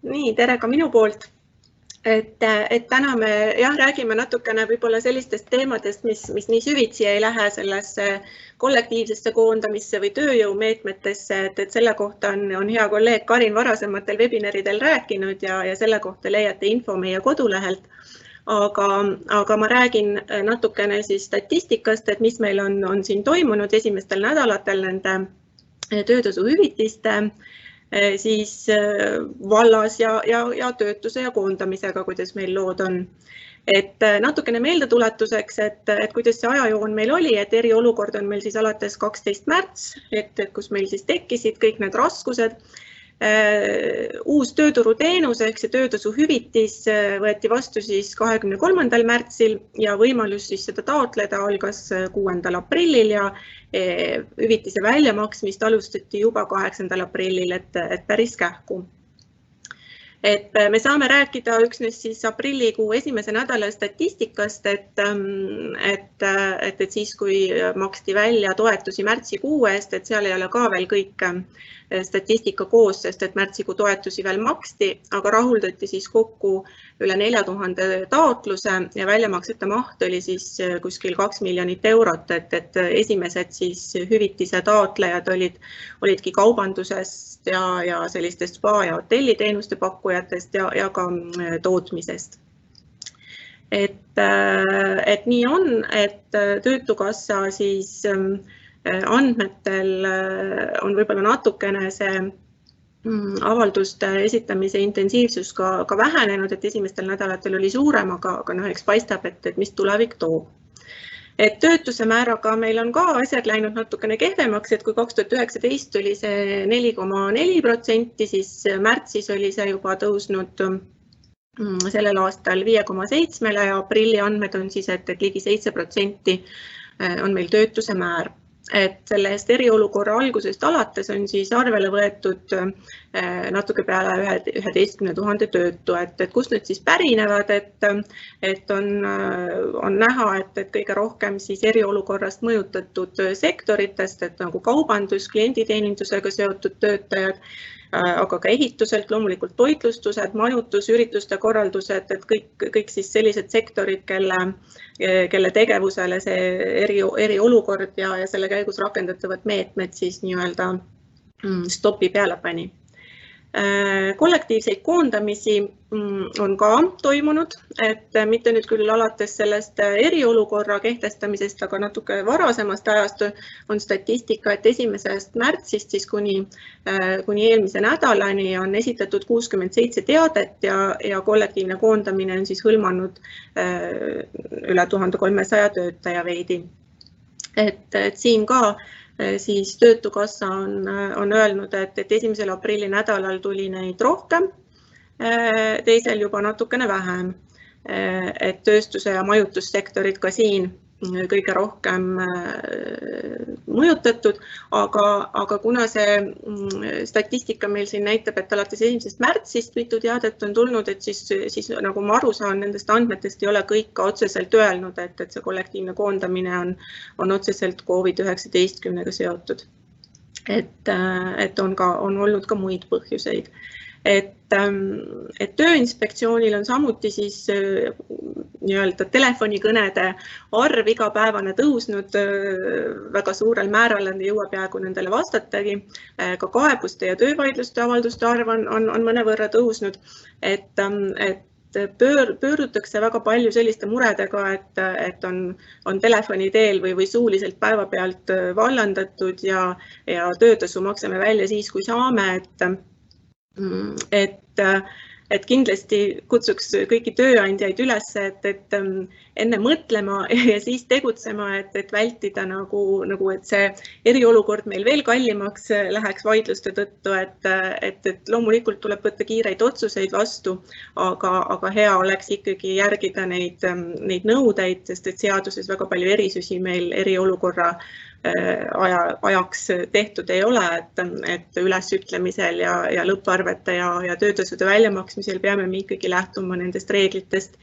Nii, tere ka minu poolt. Et täna me räägime natukene võib-olla sellistest teemadest, mis nii süvitsi ei lähe sellesse kollektiivsesse koondamisse või tööjõumeetmetesse, et selle kohta on hea kolleeg Karin varasematel webinaridel rääkinud ja selle kohta leiate info meie kodulehelt. Aga ma räägin natukene siis statistikast, et mis meil on siin toimunud esimestel nädalatel nende töötasuhüvitiste siis vallas ja töötuse ja koondamisega, kuidas meil lood on. Et natukene meeldetuletuseks, et kuidas see ajajoon meil oli, et eriolukord on meil siis alates 12. märts, et kus meil siis tekkisid kõik need raskused. Uus tööturuteenus ehk see töötasuhüvitis võeti vastu siis 23. märtsil ja võimalus siis seda taotleda algas 6. aprillil ja hüvitise väljamaksmist alustati juba 8. aprillil, et päris kähku. Et me saame rääkida üksnes siis aprillikuu esimese nädala statistikast, et siis, kui maksti välja toetusi märtsikuu eest, et seal ei ole ka veel kõik statistika koos, sest et märtsikuu toetusi veel maksti, aga rahuldati siis kokku üle 4000 taotluse ja väljamaksete maht oli siis kuskil 2 miljonit eurot, et esimesed siis hüvitise taotlejad olidki kaubandusest ja sellistest spa- ja hotelliteenuste pakkujatest ja ka tootmisest. Et nii on, et Töötukassa siis andmetel on võib-olla natukene see avalduste esitamise intensiivsus ka vähenenud, et esimestel nädalatel oli suurem, aga eks paistab, et mis tulevik toob. Et töötuse määraga meil on ka asjad läinud natukene kehvemaks, et kui 2019 oli see 4,4%, siis märtsis oli see juba tõusnud sellel aastal 5,7% ja aprilli andmed on siis, et ligi 7% on meil töötuse määr. Et sellest eriolukorra algusest alates on siis arvele võetud natuke peale 11 000 töötu, et kust need siis pärinevad, et on näha, et kõige rohkem siis eriolukorrast mõjutatud sektoritest, et nagu kaubandus, klienditeenindusega seotud töötajad, aga ka ehituselt, loomulikult toitlustused, majutus, ürituste korraldused, et kõik siis sellised sektorid, kelle tegevusele see eriolukord ja selle käigus rakendatavad meetmed siis nii-öelda stopi peale pani. Kollektiivseid koondamisi on ka toimunud, et mitte nüüd küll alates sellest eriolukorra kehtestamisest, aga natuke varasemast ajast on statistika, et 1. märtsist siis kuni eelmise nädalani on esitatud 67 teadet ja kollektiivne koondamine on siis hõlmanud üle 1300 töötaja veidi. Et siin ka siis Töötukassa on öelnud, et 1. aprilli nädalal tuli neid rohkem, teisel juba natukene vähem, et tööstuse ja majutussektorid ka siin kõige rohkem mõjutatud, aga kuna see statistika meil siin näitab, et alates 1. märtsist mitu teadet on tulnud, et siis nagu ma aru saan, nendest andmetest ei ole kõik ka otseselt öelnud, et see kollektiivne koondamine on otseselt COVID-19-ga seotud. Et on olnud ka muid põhjuseid. Et Tööinspektsioonil on samuti siis nii-öelda telefonikõnede arv igapäevane tõusnud väga suurel määral, jõuab peaaegu nendele vastatagi. Ka kaebuste ja töövaidluste avalduste arv on mõnevõrra tõusnud, et pöördutakse väga palju selliste muredega, et on telefoni teel või suuliselt päevapealt vallandatud ja töötasu maksame välja siis, kui saame, et kindlasti kutsuks kõiki tööandjaid üles, et enne mõtlema ja siis tegutsema, et vältida et see eriolukord meil veel kallimaks läheks vaidluste tõttu, et loomulikult tuleb võtta kiireid otsuseid vastu, aga hea oleks ikkagi järgida neid nõudeid, sest et seaduses väga palju erisusi meil eriolukorra ajaks tehtud ei ole, et ülesütlemisel ja lõpparvete ja töötasude väljamaksmisel peame me ikkagi lähtuma nendest reeglitest,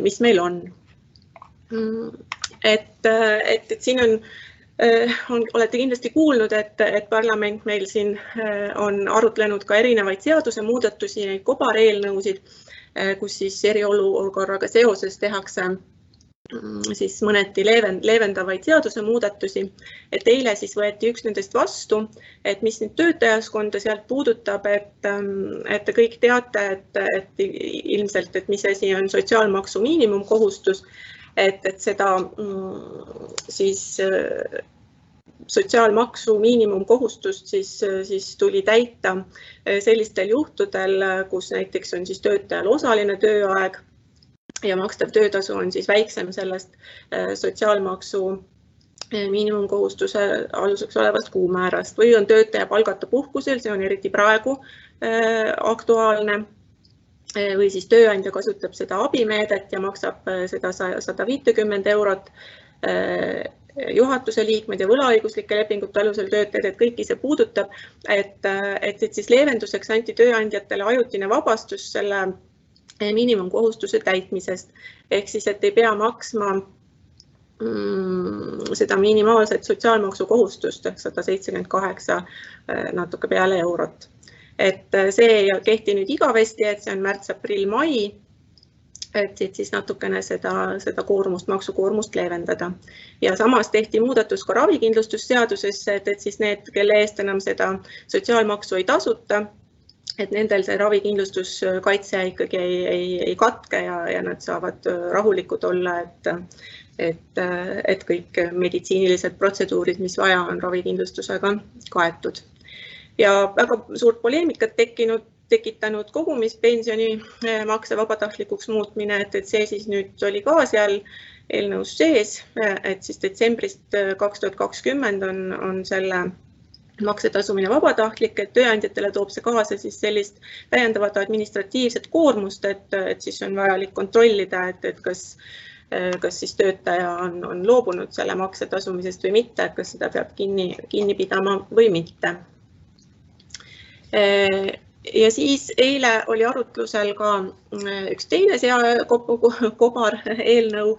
mis meil on. Et siin on Olete kindlasti kuulnud, et parlament meil siin on arutlenud ka erinevaid seadusemuudatusi, neid kobareelnõusid, kus siis eriolukorraga seoses tehakse siis mõneti leevendavaid seadusemuudatusi. Et eile siis võeti üks nendest vastu, et mis nüüd töötajaskonda sealt puudutab, et te kõik teate, et ilmselt, et mis asi on sotsiaalmaksu miinimumkohustus, et seda siis sotsiaalmaksu miinimumkohustust siis tuli täita sellistel juhtudel, kus näiteks on siis töötajal osaline tööaeg ja makstav töötasu on siis väiksem sellest sotsiaalmaksu miinimumkohustuse aluseks olevast kuumäärast või on töötaja palgata puhkusel, see on eriti praegu aktuaalne, või siis tööandja kasutab seda abimeedet ja maksab seda 150 eurot juhatuse liikmed ja võlaõiguslike lepingute alusel töötajad, et kõiki see puudutab, et siis leevenduseks anti tööandjatele ajutine vabastus selle miinimumkohustuse täitmisest. Ehk siis, et ei pea maksma seda minimaalset sotsiaalmaksu kohustust, 178 natuke peale eurot. Et see ei kehti nüüd igavesti, et see on märts, aprill, mai, et siis natukene seda maksukoormust leevendada. Ja samas tehti muudatus ka ravikindlustusseadusesse, et siis need, kelle eest enam seda sotsiaalmaksu ei tasuta, et nendel see ravikindlustuskaitse ikkagi ei katke ja nad saavad rahulikud olla, et kõik meditsiinilised protseduurid, mis vaja on ravikindlustusega kaetud. Ja väga suurt poleemikat tekitanud kogumispensioni makse vabatahtlikuks muutmine, et see siis nüüd oli ka seal eelnõus sees, et siis detsembrist 2020 on selle maksetasumine vabatahtlik, et tööandjatele toob see kaasa siis sellist täiendavat administratiivset koormust, et siis on vajalik kontrollida, et kas siis töötaja on loobunud selle makse tasumisest või mitte, et kas seda peab kinni pidama või mitte. Ja siis eile oli arutlusel ka üks teine kobar eelnõu,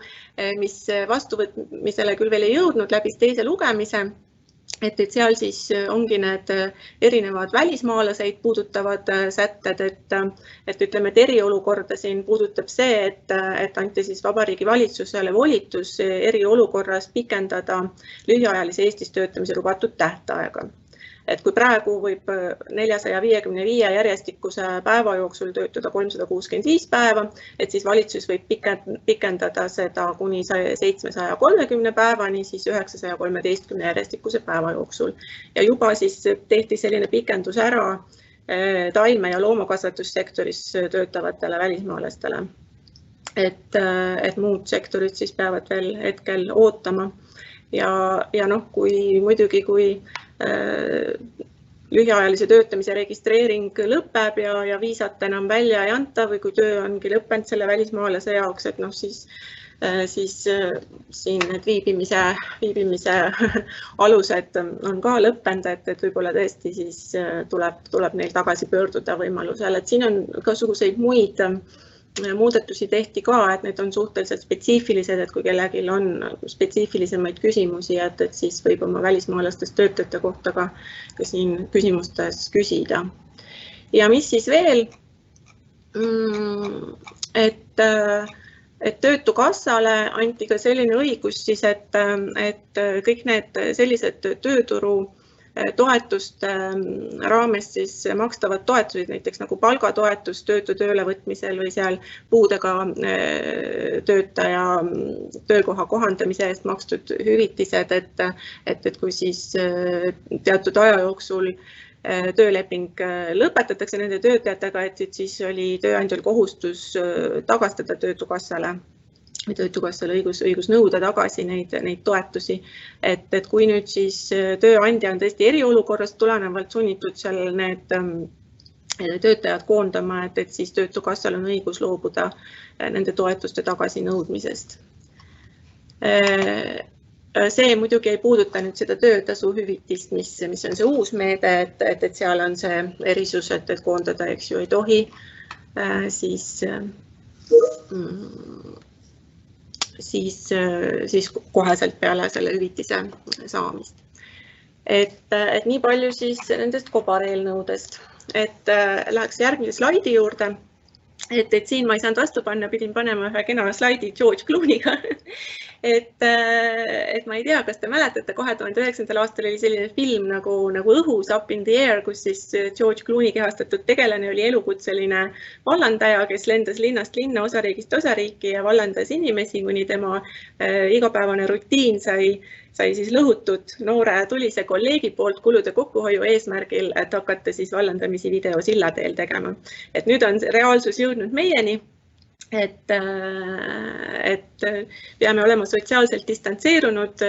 mis vastuvõtmisele küll veel ei jõudnud, läbis teise lugemise, et seal siis ongi need erinevad välismaalaseid puudutavad sätted, et ütleme, et eriolukorda siin puudutab see, et anti siis Vabariigi Valitsusele volitus eriolukorras pikendada lühiajalise Eestis töötamise lubatud tähtaega. Et kui praegu võib 455 järjestikuse päeva jooksul töötada 365 päeva, et siis valitsus võib pikendada seda kuni 730 päevani, siis 913 järjestikuse päeva jooksul. Ja juba siis tehti selline pikendus ära taime- ja loomakasvatussektoris töötavatele välismaalastele. Et muud sektorid siis peavad veel hetkel ootama. Ja noh, kui lühiajalise töötamise registreering lõpeb ja viisat enam välja ei anta või kui töö ongi lõppenud selle välismaalase jaoks, et noh, siis siin need viibimise alused on ka lõppenud, et võib-olla tõesti siis tuleb neil tagasi pöörduda võimalusel, et siin on igasuguseid muid muudatusi tehti ka, et need on suhteliselt spetsiifilised, et kui kellelgi on spetsiifilisemaid küsimusi, et siis võib oma välismaalastest töötajate kohta ka siin küsimustes küsida. Ja mis siis veel, et Töötukassale anti ka selline õigus siis, et kõik need sellised tööturu toetuste raames siis makstavad toetused, näiteks nagu palgatoetus töötu töölevõtmisel või seal puudega töötaja töökoha kohandamise eest makstud hüvitised, et kui siis teatud aja jooksul tööleping lõpetatakse nende töötajatega, et siis oli tööandjal kohustus tagastada Töötukassale või Töötukassal õigus nõuda tagasi neid toetusi. Et kui nüüd siis tööandja on tõesti eriolukorrast tulenevalt sunnitud seal need töötajad koondama, et siis Töötukassal on õigus loobuda nende toetuste tagasinõudmisest. See muidugi ei puuduta nüüd seda töötasu hüvitist, mis on see uus meede, et seal on see erisus, et koondada, eks ju, ei tohi siis siis koheselt peale selle hüvitise saamist. Et nii palju siis nendest kobareelnõudest. Et läheks järgmise slaidi juurde. Et siin ma ei saanud vastu panna, pidin panema ühe kena slaidi George Clooney'ga. et ma ei tea, kas te mäletate, 2009. aastal oli selline film nagu Õhus, Up in the Air, kus siis George Clooney kehastatud tegelane oli elukutseline vallandaja, kes lendas linnast linna, osariigist osariiki ja vallandas inimesi, kuni tema igapäevane rutiin sai siis lõhutud noore tulise kolleegi poolt kulude kokkuhoiu eesmärgil, et hakata siis vallandamisi videosilla teel tegema. Et nüüd on reaalsus jõudnud meieni, et peame olema sotsiaalselt distantseerunud,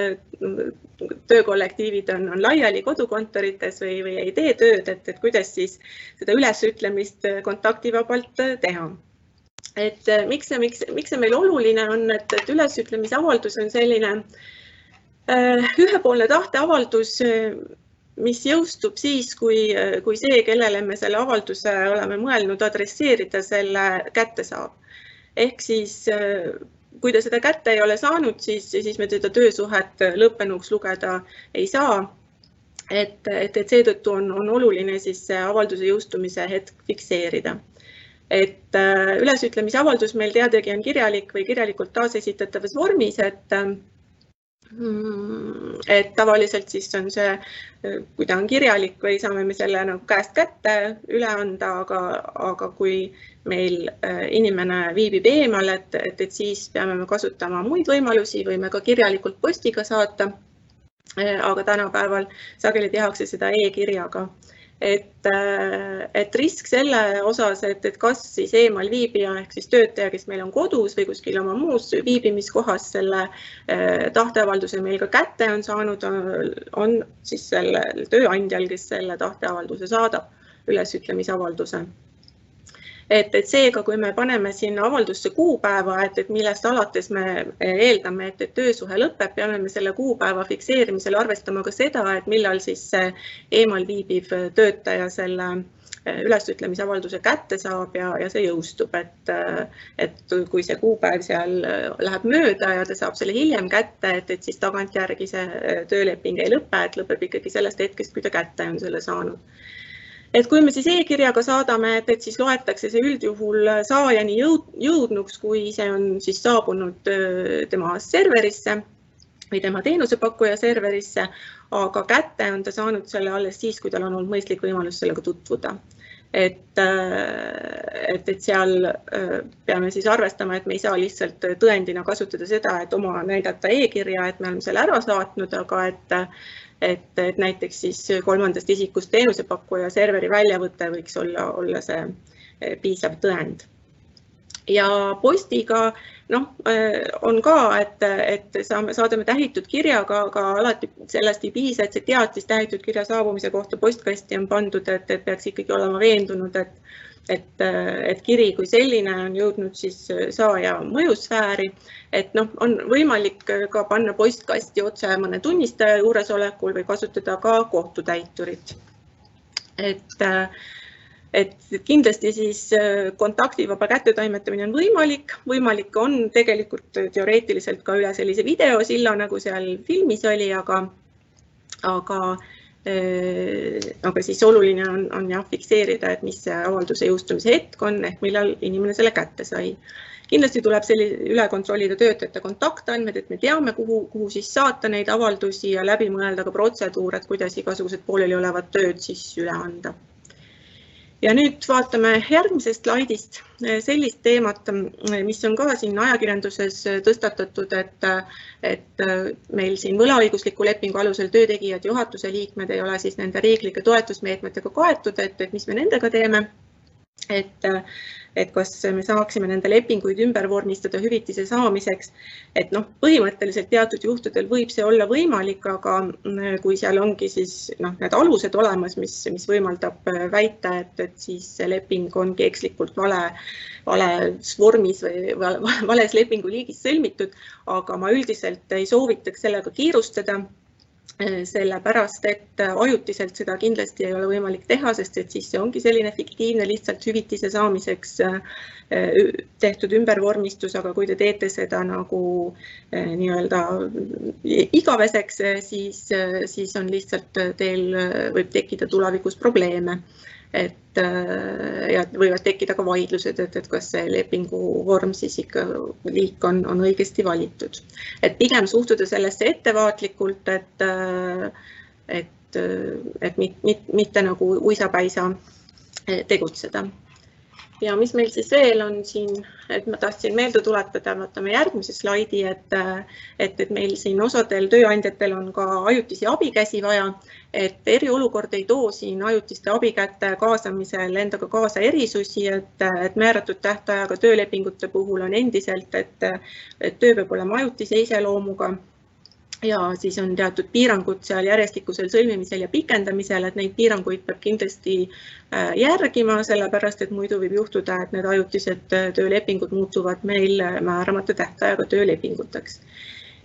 töökollektiivid on laiali kodukontorites või ei tee tööd, et kuidas siis seda ülesütlemist kontaktivabalt teha. Et miks see meil oluline on, et ülesütlemise avaldus on selline ühepoolne tahteavaldus, mis jõustub siis, kui see, kellele me selle avalduse oleme mõelnud adresseerida, selle kätte saab. Ehk siis, kui ta seda kätte ei ole saanud, siis me teda töösuhet lõppenuks lugeda ei saa. Et seetõttu on oluline siis avalduse jõustumise hetk fikseerida. Et ülesütlemise avaldus meil teadagi on kirjalik või kirjalikult taasesitatavas vormis, et tavaliselt siis on see, kui ta on kirjalik või saame me selle käest kätte üle anda, aga kui meil inimene viibib eemal, et siis peame me kasutama muid võimalusi või me ka kirjalikult postiga saata, aga tänapäeval sageli tehakse seda e-kirjaga. Et risk selle osas, et kas siis eemal viibija ehk siis töötaja, kes meil on kodus või kuskil oma muus viibimiskohas selle tahteavalduse meil ka kätte on saanud, on siis sellel tööandjal, kes selle tahteavalduse saadab, ülesütlemisavalduse. Et seega, kui me paneme sinna avaldusse kuupäeva, et millest alates me eeldame, et töösuhe lõpeb, peame me selle kuupäeva fikseerimisel arvestama ka seda, et millal siis eemal viibiv töötaja selle ülesütlemisavalduse kätte saab ja see jõustub. Et kui see kuupäev seal läheb mööda ja ta saab selle hiljem kätte, et siis tagantjärgi see tööleping ei lõpe, et lõpeb ikkagi sellest hetkest, kui ta kätte on selle saanud. Et kui me siis e-kirjaga saadame, et siis loetakse see üldjuhul saajani jõudnuks, kui see on siis saabunud tema serverisse või tema teenusepakkuja serverisse, aga kätte on ta saanud selle alles siis, kui tal on olnud mõistlik võimalus sellega tutvuda. Et seal peame siis arvestama, et me ei saa lihtsalt tõendina kasutada seda, et oma näidata e-kirja, et me oleme selle ära saatnud, aga et näiteks siis kolmandast isikust teenusepakkuja serveri väljavõte võiks olla see piisav tõend. Ja postiga on ka, et saadame tähitud kirjaga, aga alati sellest ei piisa, et see teatis tähitud kirja saabumise kohta postkasti on pandud, et peaks ikkagi olema veendunud, et kiri kui selline on jõudnud siis saaja mõjusfääri, et on võimalik ka panna postkasti otse mõne tunnistaja juuresolekul või kasutada ka kohtutäiturit. Et kindlasti siis kontaktivaba kättetoimetamine on võimalik on tegelikult teoreetiliselt ka üle sellise videosilla, nagu seal filmis oli, aga siis oluline on fikseerida, et mis see avalduse jõustumise hetk on, ehk millal inimene selle kätte sai. Kindlasti tuleb üle kontrollida töötajate kontaktandmed, et me teame, kuhu siis saata neid avaldusi ja läbi mõelda ka protseduur, et kuidas igasugused pooleli olevad tööd siis üle anda. Ja nüüd vaatame järgmisest slaidist sellist teemat, mis on ka siin ajakirjanduses tõstatatud, et meil siin võlaõigusliku lepingu alusel töötegijad juhatuse liikmed ei ole siis nende riiklike toetusmeetmetega kaetud, et mis me nendega teeme. Et kas me saaksime nende lepinguid ümber vormistada hüvitise saamiseks, et põhimõtteliselt teatud juhtudel võib see olla võimalik, aga kui seal ongi siis need alused olemas, mis võimaldab väita, et siis see leping ongi ekslikult vales vormis või vales lepingu liigis sõlmitud, aga ma üldiselt ei soovitaks sellega kiirustada. sellepärast, et ajutiselt seda kindlasti ei ole võimalik teha, sest et siis see ongi selline fiktiivne lihtsalt hüvitise saamiseks tehtud ümbervormistus, aga kui te teete seda nagu nii-öelda igaveseks, siis on lihtsalt teil võib tekkida tulevikus probleeme. Ja võivad tekkida ka vaidlused, et kas see lepingu vorm siis ikka liik on õigesti valitud. Et pigem suhtuda sellesse ettevaatlikult, et mitte nagu uisapäisa tegutseda. Ja mis meil siis veel on siin, et ma tahtsin meelde tuletada, vaatame järgmise slaidi, et meil siin osadel tööandjatel on ka ajutisi abikäsi vaja, et eriolukord ei too siin ajutiste abikäte kaasamisel endaga kaasa erisusi, et määratud tähtajaga töölepingute puhul on endiselt, et töö peab olema ajutise iseloomuga ja siis on teatud piirangud seal järjestikusel sõlmimisel ja pikendamisel, et neid piiranguid peab kindlasti järgima, sellepärast et muidu võib juhtuda, et need ajutised töölepingud muutuvad meil määramata tähtajaga töölepinguteks.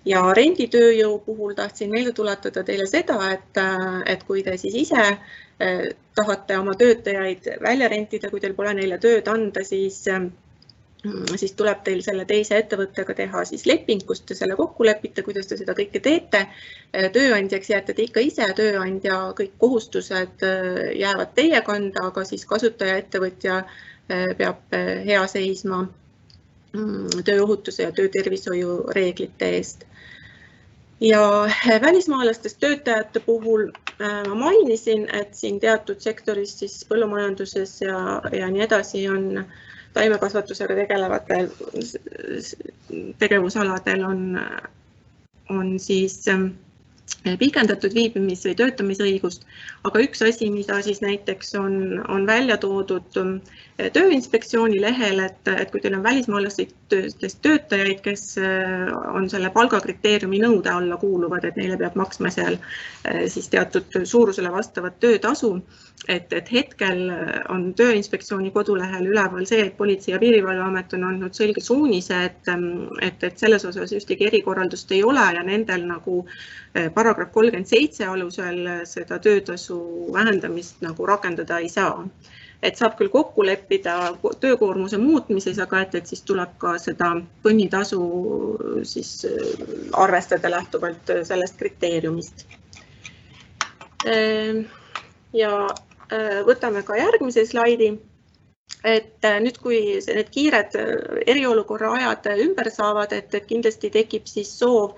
Ja renditööjõu puhul tahtsin meelde tuletada teile seda, et kui te siis ise tahate oma töötajaid välja rentida, kui teil pole neile tööd anda, siis tuleb teil selle teise ettevõttega teha siis leping, kus te selle kokku lepite, kuidas te seda kõike teete. Tööandjaks jääte te ikka ise, tööandja kõik kohustused jäävad teie kanda, aga siis kasutaja ettevõtja peab hea seisma tööohutuse ja töötervishoiu reeglite eest. Ja välismaalastest töötajate puhul ma mainisin, et siin teatud sektoris siis põllumajanduses ja nii edasi on taimekasvatusega tegelevatel tegevusaladel on siis pikendatud viibimis- või töötamisõigust, aga üks asi, mida siis näiteks on välja toodud Tööinspektsiooni lehel, et kui teil on välismaalastest töötajaid, kes on selle palgakriteeriumi nõude alla kuuluvad, et neile peab maksma seal siis teatud suurusele vastavat töötasu, et hetkel on Tööinspektsiooni kodulehel üleval see, et Politsei- ja Piirivalveamet on andnud selge suunise, et selles osas ühtegi erikorraldust ei ole ja nendel nagu paragrahv 37 alusel seda töötasu vähendamist nagu rakendada ei saa. Et saab küll kokku leppida töökoormuse muutmises, aga et siis tuleb ka seda põnnitasu siis arvestada lähtuvalt sellest kriteeriumist. Ja võtame ka järgmise slaidi, et nüüd kui need kiired eriolukorra ajad ümber saavad, et kindlasti tekib siis soov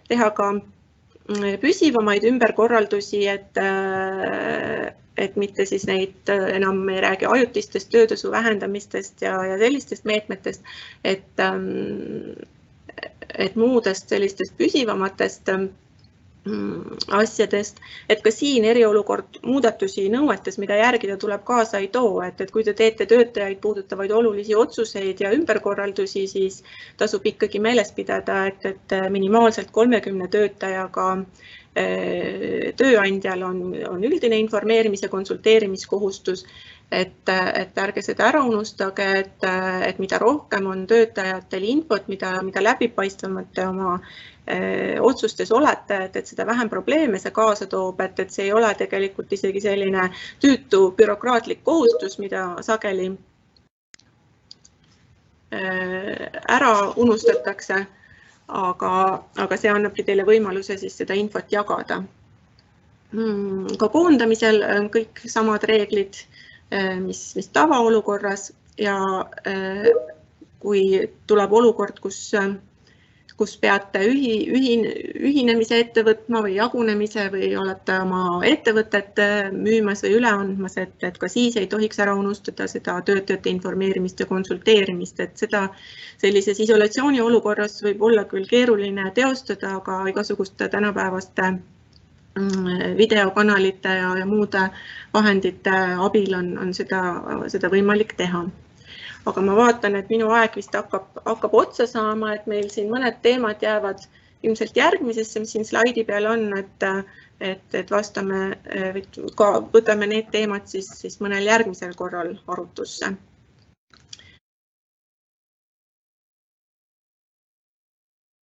teha ka püsivamaid ümberkorraldusi, et mitte siis neid enam ei räägi ajutistest töötasu vähendamistest ja sellistest meetmetest, et muudest sellistest püsivamatest asjadest, et ka siin eriolukord muudatusi nõuetes, mida järgida tuleb kaasa ei too, et kui te teete töötajaid puudutavaid olulisi otsuseid ja ümberkorraldusi, siis tasub ikkagi meeles pidada, et minimaalselt 30 töötajaga tööandjal on üldine informeerimise konsulteerimiskohustus, et ärge seda ära unustage, et mida rohkem on töötajatel infot, mida läbipaistvamate oma otsustes olete, et seda vähem probleeme see kaasa toob, et see ei ole tegelikult isegi selline tüütu bürokraatlik kohustus, mida sageli ära unustatakse, aga see annabki teile võimaluse siis seda infot jagada. Ka koondamisel on kõik samad reeglid, mis tavaolukorras ja kui tuleb olukord, kus peate ühinemise ette võtma või jagunemise või olete oma ettevõtet müümas või üle andmas, et ka siis ei tohiks ära unustada seda töötajate informeerimist ja konsulteerimist, et seda sellises isolatsiooni olukorras võib olla küll keeruline teostada, aga igasuguste tänapäevaste videokanalite ja muude vahendite abil on seda võimalik teha. Aga ma vaatan, et minu aeg vist hakkab otsa saama, et meil siin mõned teemad jäävad ilmselt järgmisesse, mis siin slaidi peal on, et vastame, võtame need teemad siis mõnel järgmisel korral arutusse.